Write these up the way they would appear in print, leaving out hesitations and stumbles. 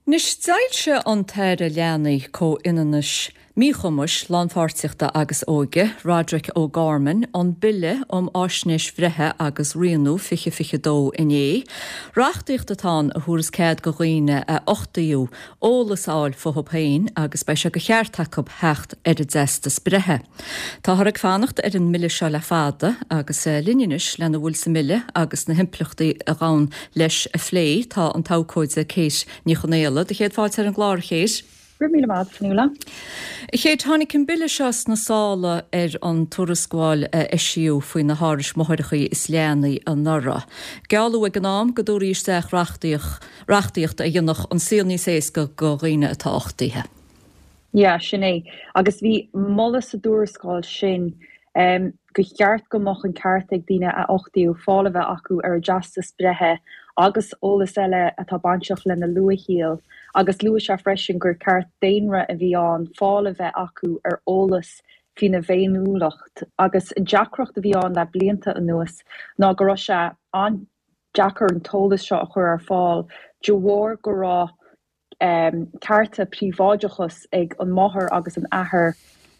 Anois, d'fhoilsigh an tAire Leanaí, Comhionannais, Míchumais, Lánpháirtíochta agus Óige, Roderic O'Gorman, an Bille um Fháisnéis Bhreithe agus Rianú 2022 inné. Reachtaíocht atá ann a thabharfas cead go dhaoine a uchtaíodh eolas a fháil fúthu féin agus beidh sé de cheart acu theacht ar a dteastas breithe. Táthar ag fanacht ar an mbille seo le fada agus linn anois lena bhfuil sa mbille agus na himpleachtaí a ghabhann leis a phlé tá an t-abhcóide Kate Ní Chonaola. Do chéad fáilte ar an gclár, a Kate. Go raibh míle maith agat, Fionnuala. A Kate, tháinig an bille seo sna sála ar an tuarascáil a eisíodh faoi na hárais máithreacha is leanaí anuraidh. Gealladh ag an am go dtabharfaí isteach reachtaíocht a dhéanfadh an saol níos éasca go dhaoine atá uchtaithe. Yeah, sin é. Agus bhí moladh sa dtuarascáil sin gur cheart go mbeadh an ceart ag daoine a uchtaíodh fáil a bheith acu ar a dteastas breithe agus eolas eile atá bainteach lena luathshaol agus luaigh sé freisin gur ceart daonna a bhí ann fáil a bheith acu ar eolas faoina bhféiniúlacht agus an deacracht a bhí ann le blianta anuas ná go raibh sé an-deacair an t-eolas seo a chur ar fáil de bharr go raibh cearta príobháideachais ag an máthair agus an athair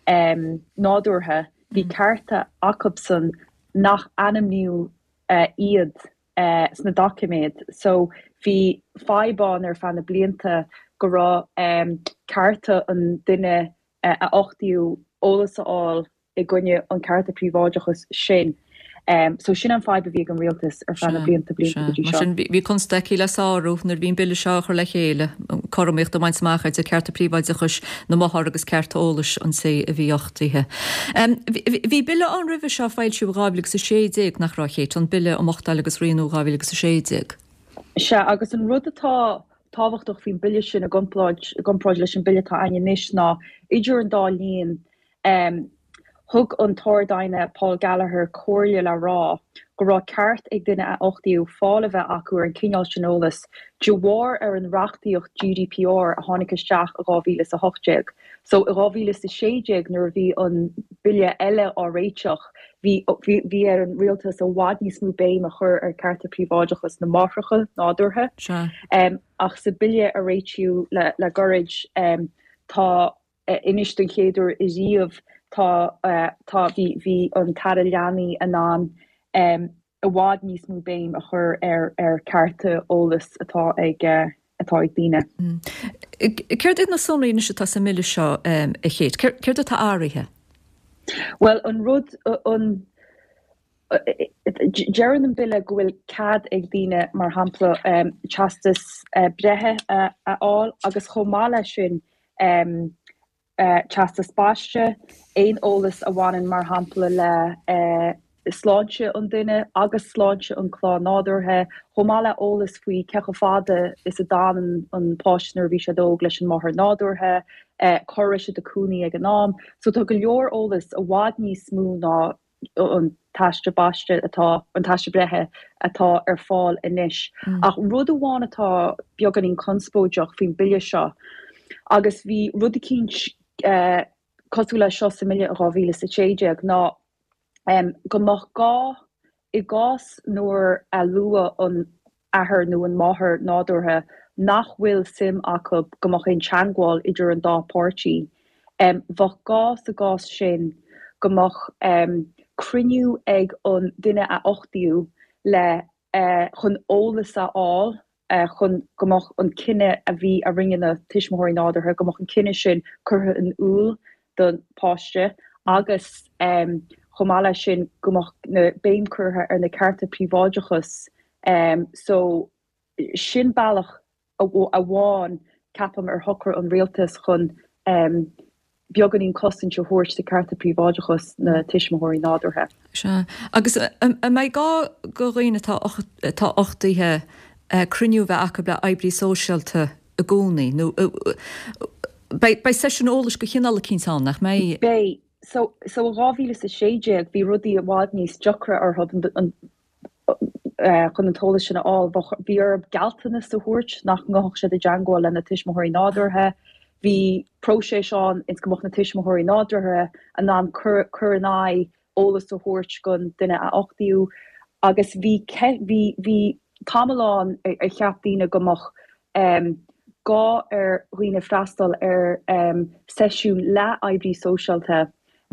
nádúrtha, bhí cearta acubsan nach ainmníodh iad sna doiciméid. So bhí fadhb ann ar feadh na blianta go raibh cearta an duine a uchtaíodh eolas a fháil i gcoinne an cearta príobháideachais sin. So sin an fadhb a bhí ag an rialtas ar feadh na blianta blianta go dtí seo. Mar sin bhí constaicí le sárú nuair a bhí an bille seo á chur le chéile, cothromaíocht a bhaint amach idir cearta príobháideachais na máthar agus cearta eolais an té a bhí uchtaithe. Bhí bille ann roimhe seo a foilsíodh i 2016, nach raibh, a Kate, an Bille um Uchtáil agus Rianú 2016? Sea, agus an rud atá tábhachtach faoin bille sin i gcomparáid leis an bille atá againn anois ná idir an dá linn, Thug an tArd-Aighne Paul Gallagher comhairle le rá go raibh ceart ag duine a uchtaíodh fáil a bheith acu ar an cineál sin eolais de bharr ar an reachtaíocht GDPR a tháinig isteach i 2018. So i 2016 nuair a bhí an bille eile á réiteach bhí bhí ar an rialtas i bhfad níos mó béim a chur ar cearta príobháideachas na máithreacha nádúrtha. Ach sa bille a réitíodh le le gairid tá Anois don chéad uair riamh tá tá bhí bhí an tAire Leanaí in ann i bhfad níos mó béim a chur ar ar cearta eolais atá ag atá ag daoine. Céard iad na sonraí anois atá sa mBille seo a Kate? Céard atá athraithe? Bhuel an rud an Deireann an bille go bhfuil cead ag daoine, mar shampla, teastas breithe a fháil agus chomh maith leis sin teastas baiste, aon eolas a bhaineann, mar shampla, le sláinte an duine agus sláinte an clann nádúrtha, chomh maith le eolas faoi cé chomh fada is a d'fhan an páiste nuair a bhí siad óg leis an máthair nádúrtha, cá raibh siad ag cónaí ag an am. So tá go leor eolas i bhfad níos mó ná an t-aiste baiste atá, an t-aiste breithe atá ar fáil anois. Ach rud amháin atá beagáinín conspóideach faoin bille seo, agus bhí rud eicínt cosúil leis seo sa mbille in 2016, ná go mbeadh gá, i gcás nuair a luadh an athair nó an máthair nádúrtha nach bhfuil suim acu go mbeadh aon teangmháil idir an dá pháirtí. Bheadh gá sa gcás sin go mbeadh cruinniú ag an duine a uchtaíodh le chun eolas a fháil chun go mbeadh an cinneadh a bhí a rinne na tuismitheoirí nádúrtha, go mbeadh an cinneadh sin curtha in iúl don pháiste agus chomh maith leis sin go mbeadh na béim curtha ar na cearta príobháideachais so sin bealach amháin ceapaim ar shocraigh an rialtas chun beagáinín cosaint a thabhairt do cearta príobháideachais na tuismitheoirí nádúrtha. Sea. Agus an mbeidh gá go dhaoine atá atá uchtaithe cruinniú a bheith acu le oibrí sóisialta i gcónaí nó beidh beidh seisiún eolais de chineál eicínt ann, nach mbeidh? Beidh. So so i 2016 bhí rudaí i bhfad níos deacra orthu an chun an t-eolas sin a fháil. Bhí orthu gealltanas a thabhairt nach ngabhfadh siad i dteangmháil lena tuismitheoirí nádúrtha. Bhí próiseas ann ins go mbeadh na tuismitheoirí nádúrtha in ann cur cur in aghaidh eolas a thabhairt don duine a uchtaíodh agus bhí bhí bhí tamall ann ar cheap daoine go mbeadh. gá ar dhaoine freastal ar seisiún le oibrí sóisialta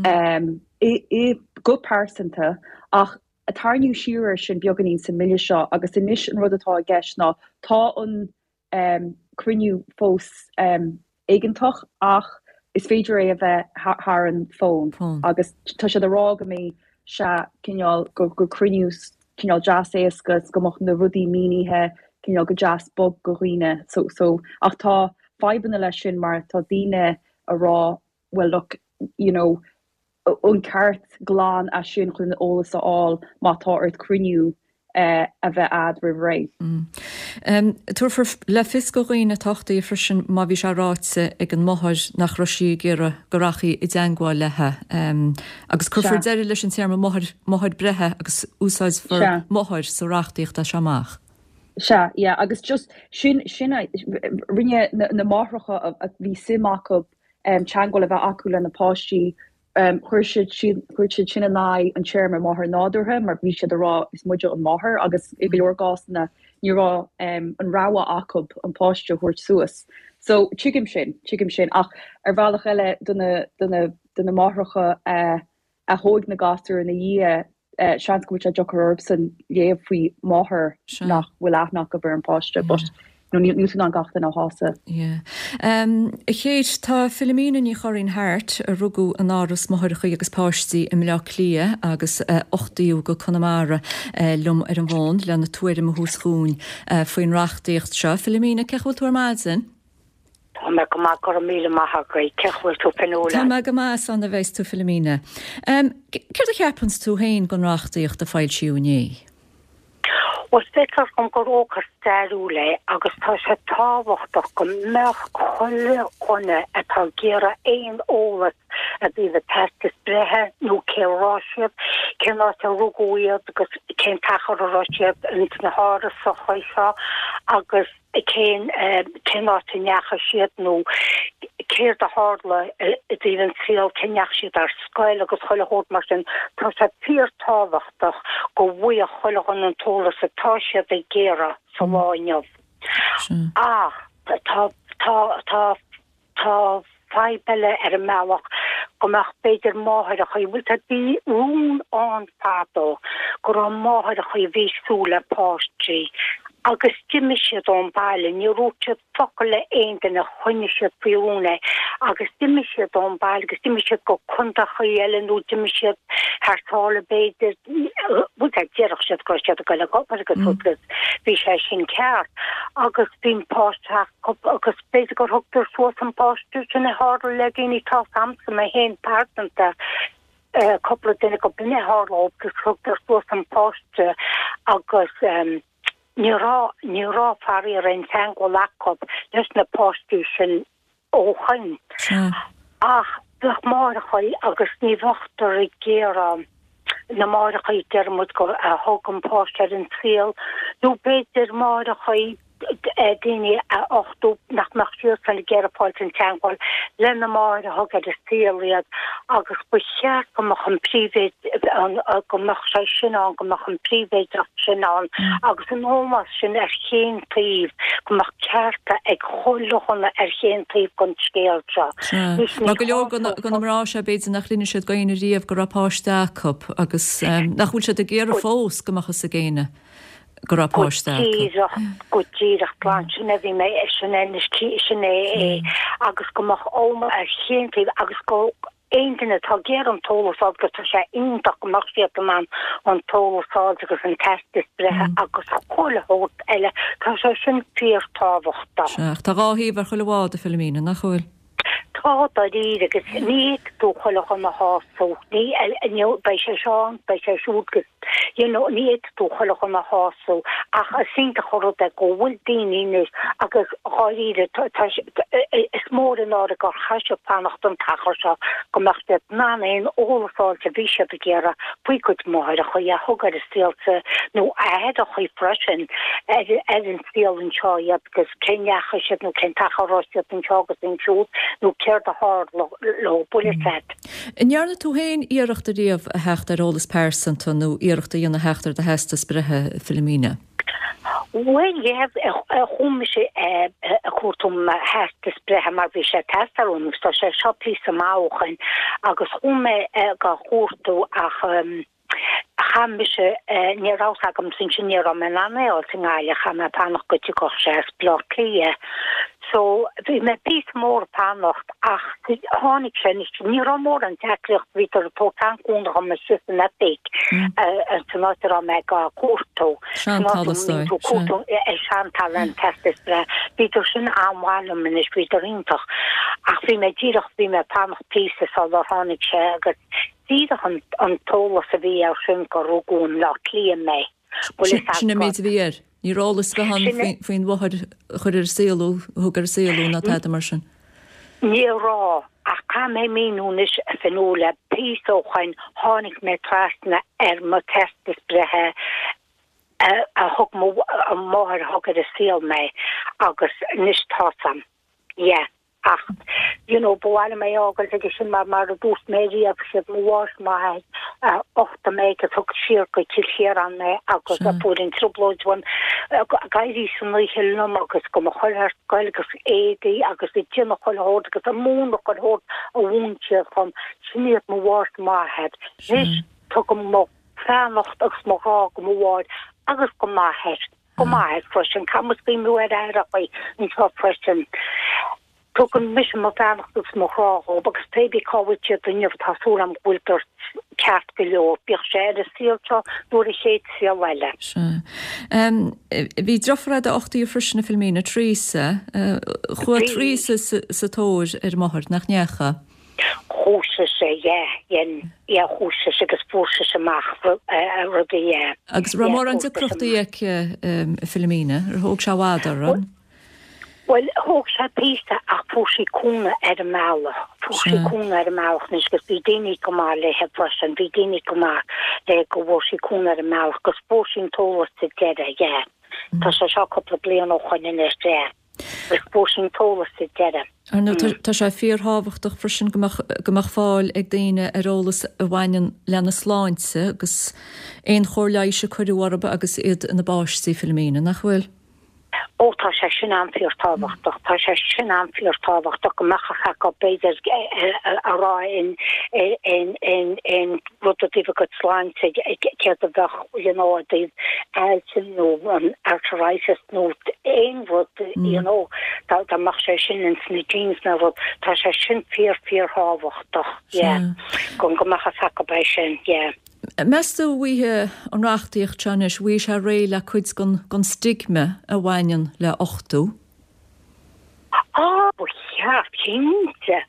i go pearsanta ach tarraingíodh siar air sin beagáinín sa mbille seo agus anois an rud atá i gceist ná tá an cruinniú fós éigeantach ach is féidir é a bheith thar an bhfón agus tá siad ag rá go mbeidh sé cineál, gur cruinniú cineál deas éasca is go mbeadh na rudaí mínithe cineál go deas bog go dhaoine so so ach tá fadhbanna leis sin mar tá daoine ag rá well look you know an ceart glan é sin chun an eolas a fháil má tá ort cruinniú a bheith a'd roimh ré. Tabharfar le fios go dhaoine atá uchtaithe freisin má bhí sé ráite ag an máthair nach raibh sí ag iarraidh go rachfaí i dteangmháil léi agus cuirfear deireadh leis an téarma máthair, máthair breithe agus úsáidfear máthair sa reachtaíocht as seo amach. Sea, yeah, agus just sin, sin a, rinne na máithreacha a bhí suim acu teagmháil a bheith acu lena páistí. Chuir siad chuir siad sin in aghaidh an téarma máthair nádúrtha mar bhí siad ag rá is muide an máthair agus i go leor gcásanna ní raibh an rogha acu an páiste a thabhairt suas. So tuigim sin, tuigim sin ach ar bhealach eile do na do na do na máithreacha a a thóig na gasúir ina dhiaidh, seans go bhfuil sé deacair orthusan léamh faoi máthair nach bhfuil aithne acu ar an bpáiste but you know níl tú in ann gach duine a shásamh. Yeah. A Kate, tá Philomena Ní Churraoin Harte, a rugadh in Áras Máithreacha agus Páistí i mBleá Cliath agus a uchtaíodh go Conamara, liom ar an bhfón lena tuairim a thabhairt dhúinn faoin reachtaíocht seo. Philomena, cén chaoi a bhfuil tú ar maidin? Tá mé go maith, go raibh míle maith agat. Cén chaoi a bhfuil tú Fionnuala? Tá mé go maith, is annamh a bheas tú Philomena. Céard a cheapanns tú féin den reachtaíocht a foilsíodh inné? Bhuel, feictear dom gur ócáid stairiúil é agus tá sé tábhachtach go mbeadh chuile dhuine atá ag iarraidh aon eolas i dtaobh a teastas breithe nó cé raibh siad, cén áit a rugadh iad agus cén t-achar a raibh siad ins na hárasacha seo agus cén cén áit a ndeachaigh siad nó céard a tharla i dtaobh an saol, cé ndeachaigh siad ar scoil agus chuile shórt mar sin. Tá sé fíor-tábhachtach go bhfaigheadh chuile dhuine an t-eolas atá siad ag iarraidh sa lá inniu. Ach tá tá tá Tá fadhb eile ar an mbealach go mbeadh b'fhéidir máithreacha, bhfuil tá bhí rún ann fadó go raibh máithreacha a bhí ag súil le páistí agus d'imigh siad ón baile, níor dhúirt siad focal le aon duine, choinnigh siad faoi rún é agus d'imigh siad ón baile agus d'imigh siad go contaechaí eile nó d'imigh siad thar sáile b'fhéidir, bhuel déarfadh siad go raibh siad ag dul ag obair agus agus bhí sé sin ceart agus bhí an páiste acu agus B'fhéidir gur thugtar suas an páiste sin a tharla le daoine tá 's a'msa mé féin pearsanta cúpla duine go b'in a tharla dóibh agus thugtar suas an páiste agus ní raibh ní raibh faraor aon teangmháil acu leis na páistí sin ó shoin. Ach bheadh máithreacha agus ní bheadh ag iarraidh na máithreacha deir muid go a thug an páiste ar an saol nó b'fhéidir máithreacha daoine a uchtú nach mbeadh siadsan ag iarraidh fáilt in teangmháil le na máthair a thug ar an saol iad agus ba cheart go mbeadh an príbhéid go mbeadh sé sin ann go mbeadh an príbhéideacht sin ann agus an ómós sin ar chaon taobh go mbeadh cearta ag chuile dhuine ar chaon taobh den scéal seo. Sea. Mar go leor de na mná seo b'fhéidir nach l'inis siad go éinne riamh go raibh páiste acu agus nach bhfuil siad ag iarraidh fós go mbeadh fhios ag éinne. go raibh páiste acu. Go díreach, go díreach glan, sin é bhí mé, sin é anois, sin é é agus go mbeadh ómós ar chaon taobh agus go aon duine atá ag iarraidh an t-eolas a fháil agus tá sé iontach go mbeadh siad in ann an t-eolas a fháil agus an teastas breithe agus chuile shórt eile, tá sé sin fíortábhachtach. Sea, ach tá dhá thaobh ar chuile bhád, a Philomena, nach bhfuil? Tá, dáiríre, agus ní fhéadfaidh tú chuile dhuine a shásamh, ní, ní, beidh sé seo ann, beidh sé siúd agus, you know, ní fhéadfaidh tú chuile dhuine a shásamh ach is iontach an rud é go bhfuil daoine anois agus dháiríre, tá, tá, is mór an náire gur chaith siad fanacht an t-achar seo go mbeadh siad in ann aon eolas a fháilt a bhí siad ag iarraidh faoi gcuid máithreacha a thug ar an saol sa, nó aithreacha freisin ar, ar an saol anseo iad. agus cé ndeachaigh siad nó cén t-achar a raibh siad anseo agus ansiúd nó céard a tharla leo, bhfuil fhios a'd. An ndearna tú féin iarracht ariamh a theacht ar eolas pearsanta nó iarracht a dhéanamh theacht ar do theastas breithe, Philomena? Bhuel, yeah, chuaigh mise ag cuartú mo theastas breithe mar bhí sé ag teastáil uaim agus tá sé seo píosa maith ó shoin agus chuaigh mé ag cuartú ach chaith mise, ní raibh fhios agam ansin, ní raibh mé in ann é a fháil i nGaillimh, chaith mé fanacht go dtiocfadh sé as Baile Átha Cliath. So, bhí mé píosa mór ag fanacht ach tháinig sé anois, ní raibh mórán deacracht, bhíodar ag tabhairt an-chúnamh dhom istigh san oifig san áit a raibh mé ag cuartú. San áit a mbíonn tú ag cuartú Shantalla an teastas breithe. Bhíodar sin an-mhaith liom anois, bhíodar iontach. Ach bhí mé díreach, bhí mé ag fanacht píosa sular tháinig sé agus díreach an t-eolas a bhí air sin gur rugadh i mBleá Cliath mé. Bhfuil fhios Sin an méid a bhí air. Ní raibh eolas ar bith ann faoin mháthair a chuir ar an saol thú, a thug ar an saol thú ná tada mar sin. Ní raibh, ach caithfidh mé míniú anois a Fionnuala, píosa ó shoin tháinig mé trasna ar mo teastas breithe a thug mo mháthair a thug ar an saol mé agus anois tá's a'm. Yeah. Ach, you know, ba mhaith liom é a fhágáilt aige sin mar, mar a dúirt mé riamh, siad mo mháthair 's m'athair a uchtaigh mé agus thug siar go Cill Chiaráin mé agus a fuair an trioblóid uaim ag éirí san oíche liom agus go mo chur ar scoil agus éadaí agus ag déanamh chuile shórt agus ag múineadh chuile shórt a mhúin siad dhom. Sin iad mo mháthair 's m'athair. Anois, tugaim mo bheannacht agus mo ghrá go mo mháthair agus go m'athair. Go m'athair freisin. Caithfidh muid cuimhniú ar aithreachaí anseo freisin. Tugann mise mo bheannacht agus mo ghrá dhóibh agus pé bí cá bhfuil siad inniu tá súil agam go bhfuiltear ceart go leor, bíodh sé ar an saol seo nó ar an chéad saol eile. Sea. Bhí deirfiúr a'd a uchtaíodh freisin a Philomena, Teresa. Chuaigh Teresa sa tóir ar a máthair, nach ndeachaigh? Chuaigh sise, yeah, dhein, yeah, chuaigh sise agus fuair sise amach rudaí, yeah. Agus raibh mórán deacrachtaí aici, a Philomena? Ar thóg sé i bhfad uirthi? Bhuel, thóg sé píosa ach fuair sí cúnamh ar an mbealach. Fuair sí cúnamh ar an mbealach anois agus bhí daoine go maith léithe freisin, bhí daoine go maith léi go bhfuair sí cúnamh ar an mbealach agus fuair sí an t-eolas sa deireadh, yeah. Tá sé seo cúpla bliain ó shoin anois, yeah. Agus fuair sí an t-eolas sa deireadh. Ar ndóigh, tá sé fíorthábhachtach freisin go mbeadh, go mbeadh fáil ag daoine ar eolas a bhaineann lena sláinte agus aon chóir leighis a cuireadh orthu agus iad ina bpáistí, Philomena, nach bhfuil? Ó, tá sé sin an-fhíorthábhachtach. Tá sé sin an-fhíorthábhachtach go mbeadh a fhios acu, b'fhéidir, a rá in, in, in, in rud i dtaobh a gcuid sláinte, céard a bheadh, you know, i dtaobh ailse nó an arthritis nó aon rud, you know, dá mbeadh sé sin ins na genes nó rud, tá sé sin fíor, fíorthábhachtach, yeah, go mbeadh a fhios acu é sin, yeah. Meas tú an bhfaighidh an reachtaíocht seo anois, an bhfaighidh sé réidh le cuid den stigma a bhaineann le uchtú? Á, ba cheart, cinnte.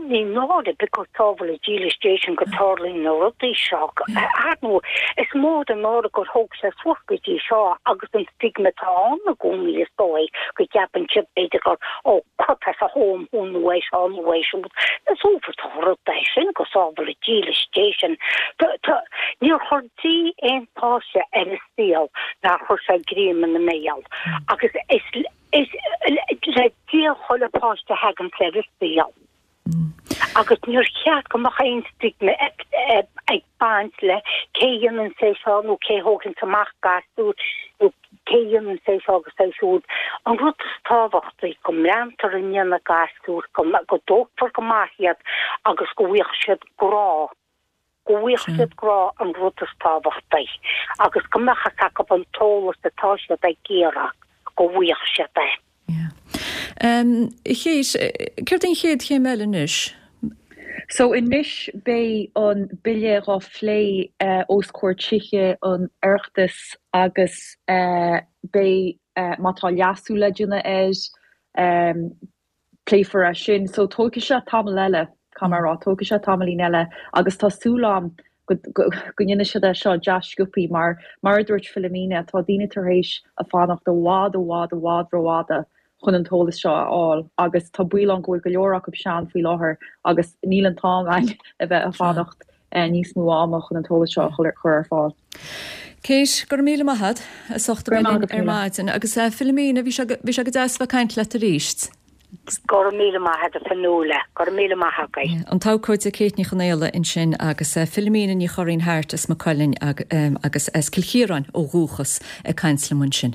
Ní náire because sábhála dílis Dé sin go dtarlaíonn na rudaí seo. Ar ndóigh, is mór an náire gur thóg sé suas go dtí seo agus an stigma atá ann i gcónaí is dóigh go gceapann siad b'fhéidir gur ó cuirfear sa home thú nó é seo nó é siúd. Is uafásach an rud é sin go sábhála dílis Dé sin. Níor chuir Dia aon pháiste ar an saol nár chuir sé greim ina mbéal agus is Is le Dia chuile pháiste a thagann ar an saol. Agus níor cheart go mbeadh aon stigma ag baint le cé a dhéanann é seo nó cé a thóganns amach gasúr nó cé a dhéanann é seo agus é siúd. An rud is tábhachtaí go mbreathnófar i ndiaidh na gasúr, go dtógfar go maith iad agus go bhfaigheadh siad grá. go bhfaigheadh siad grá an rud is tábhachtaí agus go mbeadh fhios acu an t-eolas atá siad ag iarraidh, go bhfaigheadh siad é. Yeah. A Kate, céard é an chéad chéim eile anois? So anois beidh an bille dhá phlé os comhair tithe an Oireachtais agus beidh, má tá leasú le déanamh air, pléifear é sin. So tógfaidh sé tamall eile, caithfidh mé a rá, tógfaidh sé tamaillín eile agus tá súil agam go go ndéanfaidh siad é seo deas sciobthaí mar, mar a dúirt Philomena, tá daoine tar éis a fanacht i bhfad, i bhfad, i bhfad rófhada chun an t-eolas seo a fháil agus tá baol ann go bhfuil go leor acu sean faoi láthair agus níl an t-am againn a bheith ag fanacht níos mó ama chun an t-eolas seo a chur ar fáil. Kate, go raibh míle maith agat as ucht a bheith linn ar maidin. Agus Philomena, bhí sé go deas a bheith ag caint leat arís. Go raibh míle maith agat a Fionnuala, go raibh míle maith agaibh. An t-abhcóide Kate Ní Chonaola ansin agus Philomena Ní Churraoin-Harte as Maigh Cuilinn agus as Cill Chiaráin ó dhúchas ag caint liom ansin.